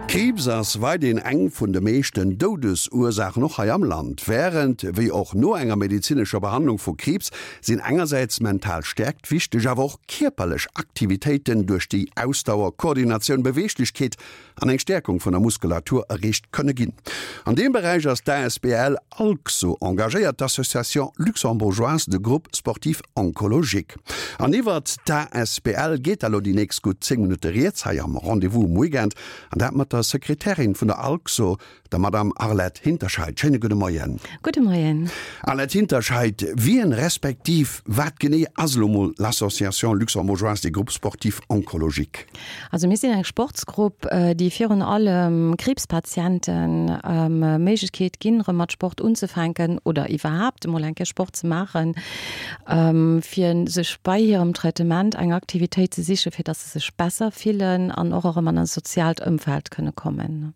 Kriibs ass weiderhin eng vun de meeschten Doudesursaachen, och hei am Land. Wärend wéi och no enger medezinescher Behandlung vu Kriibs sinn engersäits mental Stäerkt wichteg, awer och kierperlech Aktivitéiten, duerch déi Ausdauer, Koordinatioun, Beweeglechkeet an eng Stäerkung vun der Muskulatur erreecht kënne ginn. An deem Beräich ass d'ASBL ALGSO engagéiert, d'Association Luxembourgeoise de Groupes Sportifs Oncologiques. An iwwert d'ASBL geet da lo déi nächst gutt 10 Minutte rieds hei am Rendez-vous um Weekend, an dat mat der Sekretärin vun der ALGSO, der Madame Arlette Hinterscheid. Schéine gudde Moien. Gudde Moien. Arlette Hinterscheid, wien respektiv wat genee ass elo mol l'Association Luxembourgeoise des Groupes Sportifs Oncologiques? Also mir sinn eng Sportsgrupp, déi virun allem Kriibspatienten Méiglechkeet ginn, erëm mat Sport unzefänken oder iwwerhaapt emol eng Kéier Sport ze maachen, fir sech bei hirem Traitement eng Aktivitéit ze sichen, fir dass se sech besser fillen an och erëm an e soziaalt Ëmfeld kënne kommen.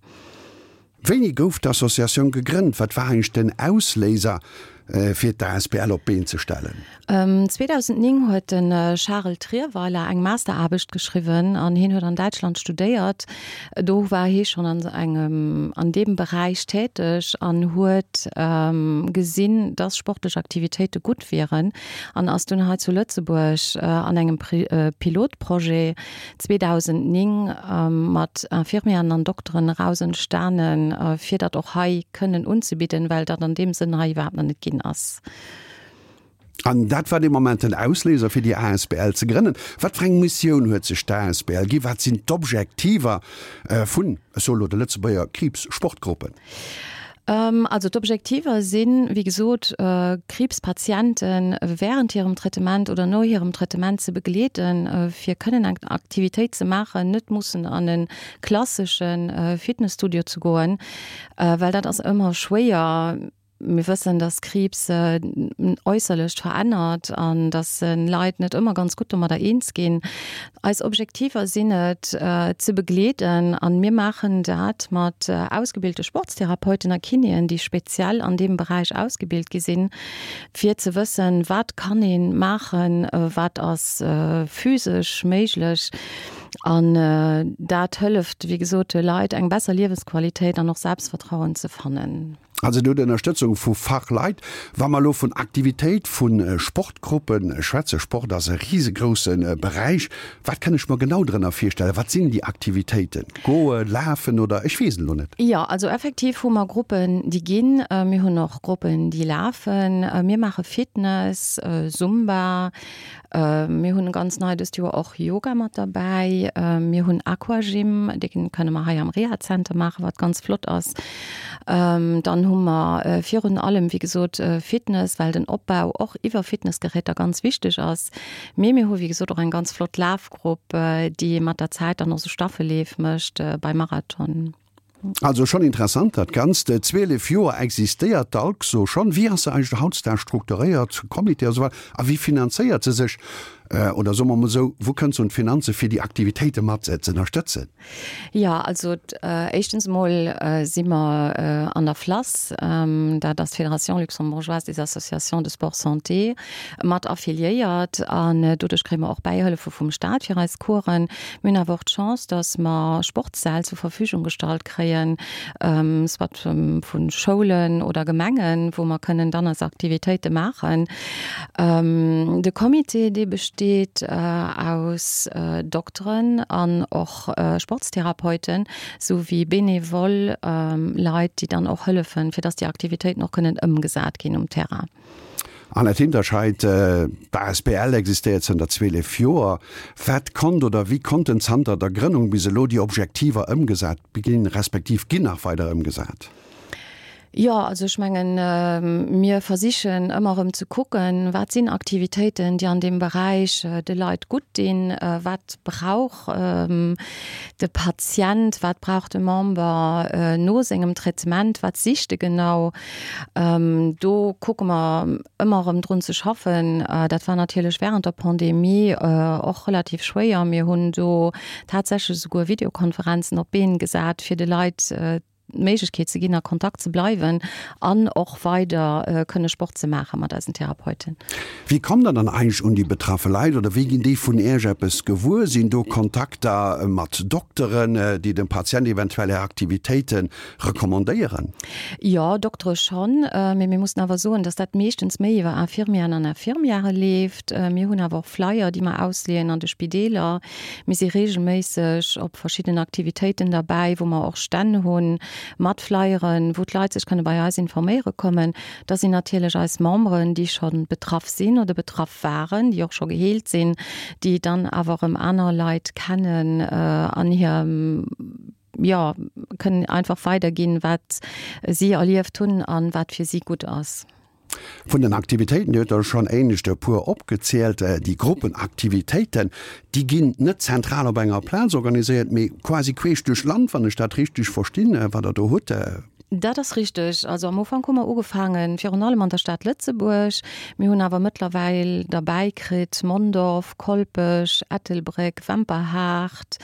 Wéini gouf d'Associatioun gegrënnt? Wat war eigentlech den Ausléiser, fir d'ASBL op d'Been ze stellen? 2009 huet de Charel Trierweiler eng Masteraarbecht geschriwwen an hien huet an Däitschland studéiert. Do war hie schonn an engem, an deem Beräich täteg an huet gesinn, dass sportlech Aktivitéite gutt wieren an ass dunn hei zu Lëtzebuerg an engem Pilotprojet 2009 mat Infirmieren an Dokteren eraus entstanen, fir dat och hei kënnen unzebidden, well dat an deem Sënn hei iwwerhaapt nach net ginn ass. An dat war dee Moment den Ausléiser, fir déi asbl ze grënnen. Wat fir eng Missioun huet sech d'asbl ginn? Wat sinn d'Objektiver vun, ech soe lo, de Lëtzebuerger Kriibssportgruppen? Also d'Objektiver sinn, wéi gesot, Kriibspatiente während hirem Traitement oder no hirem Traitement ze begleeden, fir kënnen eng Aktivitéit ze maachen, net mussen an e klassesche Fitnesstudio ze goen, well dat ass ëmmer schwéier. Mir wëssen, dass Kriibs äusserlecht verännert an dass Leit net ëmmer ganz gutt domadder eens ginn. Eis Objektiver sinn et, ze begleeden an mir maachen dat mat ausgebilte Sportstherapeuten a Kinéen, déi speziell an deem Beräich ausgebilt gi sinn, fir ze wëssen, wat kann ee maachen, wat ass physesch méiglech. An dat hëlleft, wéi gesot, de Leit eng besser Liewensqualitéit an och Selbstvertrauen ze fannen. Also dir hutt Ënnerstëtzung vu Fachleit. Wa mer elo vun Aktivitéit vu Sportgruppe schwätzen, Sport ass e risegrousse Beräich, wat kënn ech mer genau drënner virstellen? Wat sinn déi Aktivitéiten? Goen, lafen oder ech weess et elo net. Jo, also effektiv hu mer Gruppen, déi ginn. Mir hunn och Gruppen, déi lafen. Mir maache Fitness, Zumba, Mir hunn ganz nei dëst Joer och Yoga mat derbäi. Mir hunn Aquagym, dee kënne mer hei am Rehazenter maachen, wat ganz flott ass. Dann hu mer virun allem, wéi gesot, Fitness, well den Opbau och iwwer Fitnessgeräter ganz wichteg ass. Mee mir hu wéi gesot och eng ganz flott Lafgrupp, déi mat der Zäit dann och sou Staffelleef mécht beim Marathon. Also schonn interessant dat Ganzt. 12 Joer existéiert d'ALCSO schonn. Wéi ass se eigentlech hautdesdaags strukturéiert, Comité a sou weider, a wéi finanzéiert se sech? Oder soe mer emol esou, wou kënnt se un d'Finanze fir déi Aktivitéite mat ze ënnerstëtzen? Jo, also éischtens emol si mer an der FLASS, dat ass d'Fédération luxembourgeoise des associations de sport santé, mat affiliéiert an doduerch kréie mer och Bäihëllefe vum Staat fir eis Coursen. Mir hunn awer och d'Chance, dass mer Sportssäll zur Verfügung gestallt kréien, soit vu Schoulen oder Gemengen, wou mer kënnen dann eis Aktivitéite maachen. De Comité, dee besteet aus Dokteren an och Sportstherapeuten, sou wéi benevol Leit, déi dann och hëllefen, fir dass déi Aktivitéiten och kënnen ëmgesat ginn um Terrain. Annette Hinterscheid, D'asbl existéiert zënter 12 Joer. Wat konnt oder wéi konnten zanter der Grënnung bis elo déi Objektiver ëmgesat ginn, respektiv ginn nach weider ëmgesat? Jo, also ech mengen, mir versichen ëmmer erëm ze kucken, wat sinn Aktivitéiten, déi an deem Beräich de Leit gutt dinn, wat brauch de Patient, wat brauch de Member no sengem Traitement, wat sicht e genau. Do kucke mer ëmmer erëm drun ze schaffen. Dat war natierlech während der Pandemie och relativ schwéier. Mir hunn do tatsächlech esouguer Videokonferenzen op d'Been gesat, fir de Leit. d'Méiglechkeet ze ginn, a Kontakt ze bleiwen an och weider kënne Sport ze maache mat eisen Therapeuten. Wéi kommt Der dann eigentlech un déi betraffe Leit oder wéi ginn déi vun Iech eppes gewuer? Sinn do Kontakter mat Dokteren, déi dem Patient eventuell Är Aktivitéite recommandéieren? Jo, Doktere schonn, mee mir mussen awer soen, dass dat meeschtens méi iwwer Infirmieren an Infirmièrë leeft. Mir hunn awer och Flyer, déi mer ausleeën an de Spideeler. Mir si reegelméisseg op verschidden Aktivitéiten derbäi, wou mer och Stänn hu mat Flyeren, wou d'Leit sech kënne bei eis informéiere kommen. Da sinn natierlech eis Memberen, déi scho betraff sinn oder betraff waren, déi och scho geheelt sinn, déi dann awer erëm aner Leit kennen an hir, jo, kënnen einfach weiderginn, wat si erlieft hunn a wat fir si gutt ass. Vun den Aktivitéiten, Dir hutt der schonn éinescht e puer opgezielt, déi Gruppenaktivitéiten, déi ginn net zentral op enger Plaz organiséiert, mee quasi queesch duerch d'Land, wann ech dat richteg verstinn, wat Der do hutt. Dat ass richteg. Also am Ufank hu mer ugefaangen, virun allem an der Stad Lëtzebuerg. Mir hunn awer mëttlerweil derbäi kritt Mondorf, Kolpech, Ettelbréck, Wemperhaart,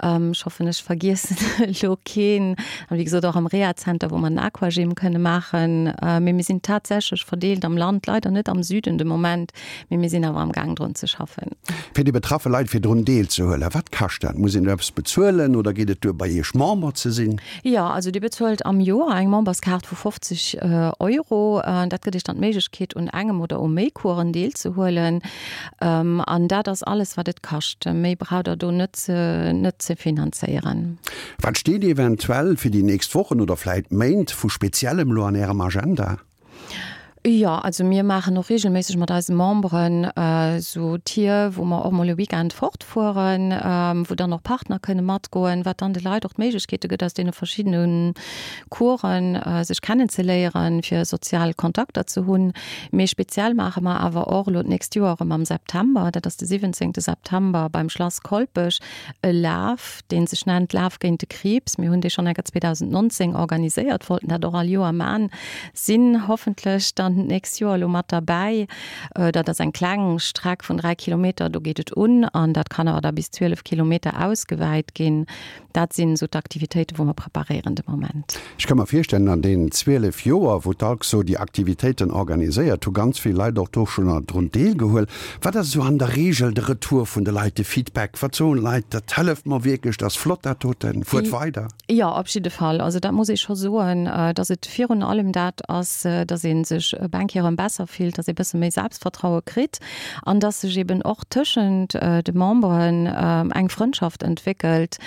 Ech hoffen, ech vergiessen elo keen. An wéi gesot och am Rehazenter, wou mer den Aquagym kënne maachen. Mee mir sinn tatsächlech verdeelt am Land, leider net am Süden de Moment, mee mir sinn awer am Gaang drun ze schaffen. Fir déi betraffe Leit fir drun deelzehuelen, wat kascht dat? Muss een do eppes bezuelen oder geet et duer bei Iech Member ze sinn? Jo, also Dir bezuelt am Joer eng Memberskaart vu 50 Euro. Dat gëtt Iech dann d'Méiglechkeet un engem oder u méi Coursen deelzehuelen. An dat ass alles, wat et kascht. Méi braucht Der do net ze, net ze finanzéieren. Wat steet eventuell fir déi nächst Wochen oder vläit Méint vu Speziellem elo an Ärem Agenda? Jo, also mir maachen och reegelméisseg mat eise Memberen esou Tier, wou mer och mol e Weekend fortfueren, wou dann och Partner kënne matgoen, wat dann de Leit och d'Méiglechkeete gëtt, aus deene verschiddene Coursen sech kennenzeléieren, fir sozial Kontakter ze hunn. Mee speziell maache mer awer och elo d'nächst Joer erëm am September, dat ass de 17 September beim Schlass Kolpech, e Laf, dee sech nennt Laf géint de Kriibs. Mir hunn dee schonn enker 2019 organiséiert, wollten dat och all Joer man, sinn hoffentlech dann d'nächst Joer elo mat derbäi. Dat ass eng kleng Streck vun 3 Kilometer, do geet et un an dat kann awer da bis 12 Kilometer ausgewäit ginn. Dat sinn esou d'Aktivitéiten, wou mer preparéieren de Moment. Ech ka mer virstellen, an deenen 12 Joer, wou d'ALCSO déi Aktivitéiten organiséiert, hu ganz vill Leit och do schonn drun deelgehuel. Wat ass esou an der Reegel de Retour vun de Leit, de Feedback? Wat soen d'Leit, dat hëlleft mer wierklech, dat ass flott dat doten, fuert weider? Jo, op jidde Fall. Also dat muss ee scho soen, datt et virun allem dat ass, datt ee sech op eng Kéier erëm besser fillt, datt ee bësse méi Selbstvertraue kritt an datt sech eben och tëschent de Memberen eng Frëndschaft entwéckelt,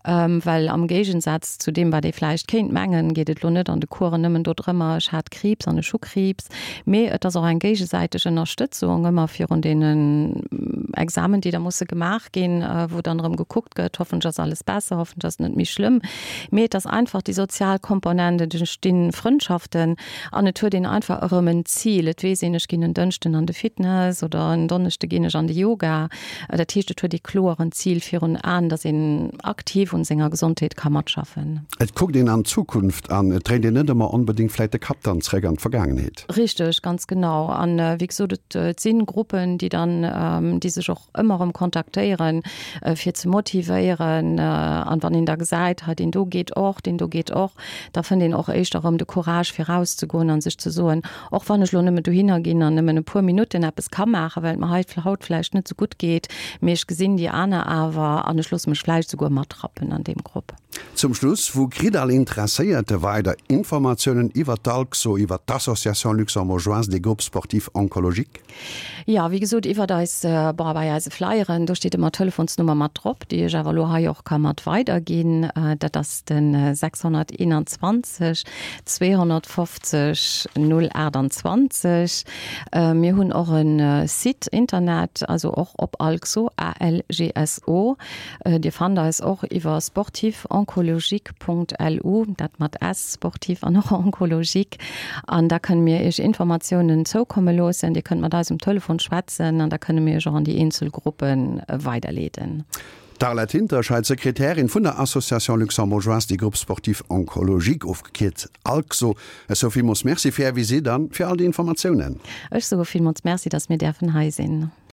well am Géigensaz zu deem, wat ee vläicht kéint mengen, geet et elo net an de Coursen nëmmen dodrëmmer, ech hat Kriibs an ech hu Kriibs, mee et ass och eng géigesäiteg Ënnerstëtzung ëmmer virun deenen Examen, déi da musse gemaach ginn, wou dann erëm gekuckt gëtt, hoffentlech ass alles besser, hoffentlech ass et net méi schlëmm, mee et ass einfach déi sozial Komponent, et entstinn Frëndschaften. An et huet een einfach erëm en Zil. Et weess een, ech ginn en Dënschden an de Fitness oder en Donneschde ginn ech an de Yoga. Dat heescht, et huet ee kloer en Zil virun Aen, dass een aktiv un senger Gesondheet ka matschaffen. Et kuckt een an d'Zukunft an et dréint een net ëmmer onbedéngt vläit de Kapp dann zréck an d'Vergaangenheet. Richteg, ganz genau. An wéi gesot, et si Gruppen, déi dann, déi sech och ëmmer erëm kontaktéieren, fir ze motivéieren. An wann een da gesäit, hei deen do geet och, deen do geet och, da fënnt een och éischter erëm de Courage fir rauszegoen a sech ze soen, och wann ech elo nëmme dohinner ginn an nëmmen e puer Minutten eppes ka maachen, well et mer hei haut vläicht net esou gutt geet, mee ech gesinn déi aner awer an ech loosse mech vläicht esouguer matrappen an deem Grupp. Zum Schluss, Wou kritt all Interesséierte weider Informatiounen iwwer d'ALCSO, iwwer d'Association luxembourgeoise des groupes sportifs oncologiques? Jo, wéi gesot, iwwert eis, bon, bei eise Flyeren, do steet ëmmer d'Telefonsnummer mat drop, déi ech awer elo hei och ka mat weiderginn. Dat ass de 621 250 028. Mir hunn och e Site Internet, also och op Algso, A-L-G-S-O. Dir fannt eis och iwwer sportifoncologique.lu, dat mat S, sportif an och oncologique. An da kënne mir Iech Informatiounen zoukomme loossen. Dir kënnt mat eis um Telefon schwätzen an da kënne mir Iech och an déi eenzel Gruppe weiderleeden. D'Arlette Hinterscheid, Sekretärin vun der Association Luxembourgeoise des Groupes Sportifs Oncologiques, ofgekierzt ALGSO. Ech soe villmools Merci fir Är Visitt an fir all déi Informatiounen. Ech soe villmools Merci, dass mir däerfen hei sinn.